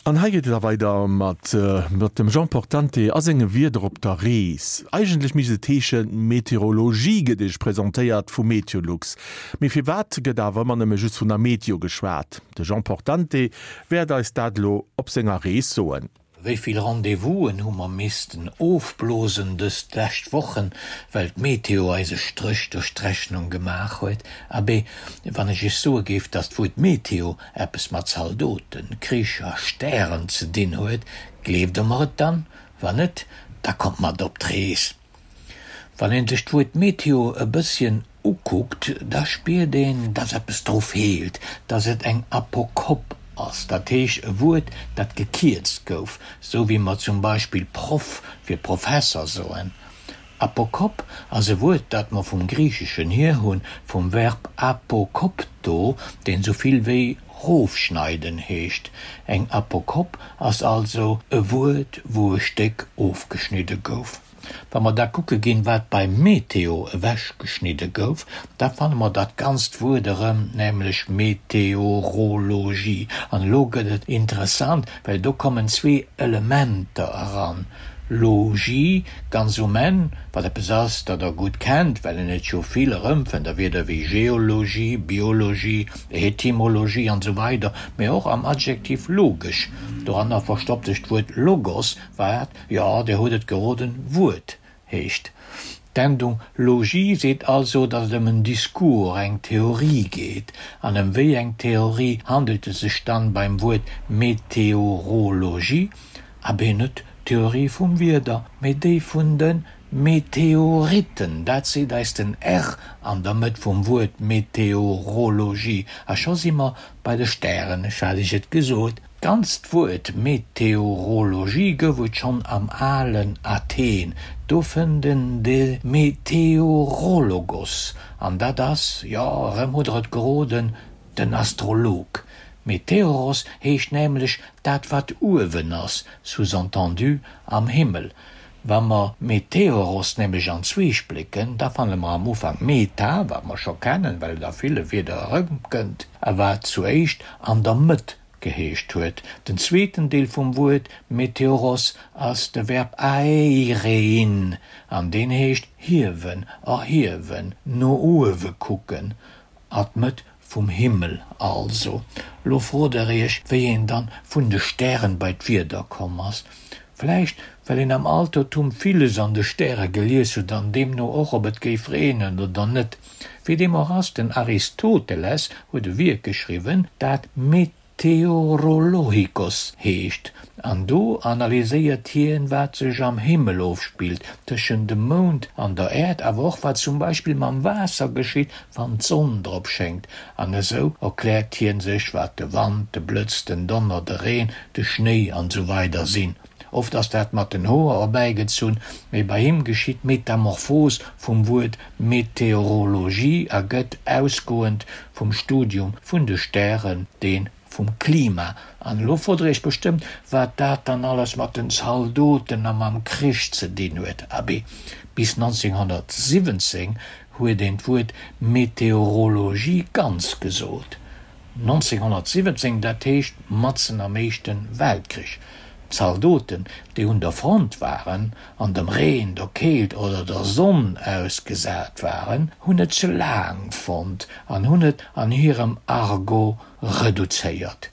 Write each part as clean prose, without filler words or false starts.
An hei geet et da weider mat mat dem Jean Portante a senge Wierder op der Rees. Eigentlech misst et heeschen, Meteorologie gëtt Iech presentéiert vu Meteolux. Mee firwat gëtt awer ëmmer nëmme just vun der Meteo geschwat? De Jean Portante wäert eis dat elo op senger Rees soen. Wéi vill Rendez-vousen hu mer missten ofblosen dës lescht Wochen, well d'Meteo eis e Stréch duerch d'Rechnung gemaach huet? Abee, wann ech iech soe géif, datt d'Wuert Meteo eppes mat Zaldoten, Krich a Stären ze dinn huet, gleeft der mer et dann? Wann net, da kommt mat op d'Rees! Wann een sech d'Wuert Meteo e bësschen ukuckt, da spiert een, dass eppes dru feelt, dass et eng Apokop ass, dat heescht e Wuert, dat gekierzt gouf, sou wéi mer zum Beispill Proff fir Professer soen. Apokop ass e Wuert, dat mer vum Griicheschen hier hunn, vum Verb apokopto, deen sou vill wéi rofschneiden heescht. Eng Apokop ass also e Wuert, wou e Stéck ofgeschnidde gouf. Wa mer da kucke ginn, wat bei Meteo ewechgeschnidde gouf, da fanne mer dat ganzt Wuert erëm, nämlech Meteorologie. An elo gëtt et interessant, well do kommen zwee Elementer eran, Logie ganz um Enn, wat eppes ass, dat Der gutt kennt, well een et jo vill erëmfënnt a Wierder wéi Geologie, Biologie, Etymologie an esou weider, mä och am Adjektiv logesch. Doranner verstoppt sech d'Wuert Logos, wat Jo, Dir hutt et geroden, Wuert heescht. D'Endung logie seet also, datt et ëm en Discours, eng Theorie geet. An ëm wéi eng Theorie handelt et sech dann beim Wuert Meteorologie? Abee, net d'Theorie vum Wieder, mee déi vun de Meteoritten. Dat seet eis den r an der Mëtt vum Wuert Meteorologie. A scho si mer bei de Stären, ech hat Iech et gesot. D'ganzt Wuert Meteorologie gouf et schonn am alen Athen, do fënnt en de Meteorologos, an dat ass, jo, erëm hutt der et geroden, den Astrolog. Meteoros heescht nämlech dat wat uewen ass, sous-entendu am Himmel. Wa mer Meteoros nämlech an zwee splécken, da fanne mer am Ufank meta, wat mer scho kennen, well et a ville Wierder erëmkënnt, a wat zuéischt an der Mëtt geheescht huet. Den zweeten Deel vum Wuert Meteoros ass de Verb aeirein an deen heescht hiewen, erhiewen, no uewe kucken, a d'Mëtt vum Himmel also. Lo frot der iech, wéi een dann vun de Stären bei d'Wieder komm ass. Vläicht well een am Altertum villes an de Stäre gelies huet an deemno och ob et géif reenen oder net. Wéi deem och ass, den Aristoteles huet e Wierk geschriwwen, dat Meteorologikos heescht, an do analyséiert hien, wat sech am Himmel ofspillt, tëschent dem Mound an der Äerd, awer och wat zum Beispill mam Waasser geschitt, wann d'Sonn drop schéngt. An esou erkläert hien sech, wat de Wand, de Blëtz, den Donner, de Reen, de Schnéi an esou weider sinn. Oft ass dat mat den Hoer erbäigezunn, mee bei him geschitt d'Metamorphos vum Wuert Meteorologie a gëtt, ausgoend vum Studium vun de Stären, dee vum Klima. An elo frot der iech bestëmmt, wat dat dann alles mat den Zaldoten a mam Krich ze dinn huet. Abee, bis 1917 huet een d'Wuert Meteorologie ganz gesot. 1917, dat heescht matzen am Éischte Weltkrich. D'Zaldoten, déi un der Front waren an dem Reen, der Keelt oder der Sonn ausgesat waren, hunn et ze laang fonnt an hunn et an hirem Argot reduzéiert.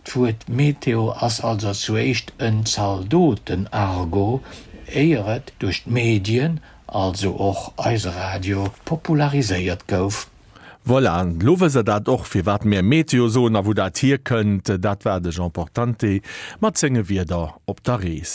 D'Wuert Meteo ass also zuéischt en Zaldoten-Argot, éier et duerch d'Medien, also och eise Radio, populariséiert gouf. Voilà, elo wësst der dat och, firwat mär Meteo soen a wou dat hierkënnt. Dat war de Jean Portante mat senge Wierder op der Rees.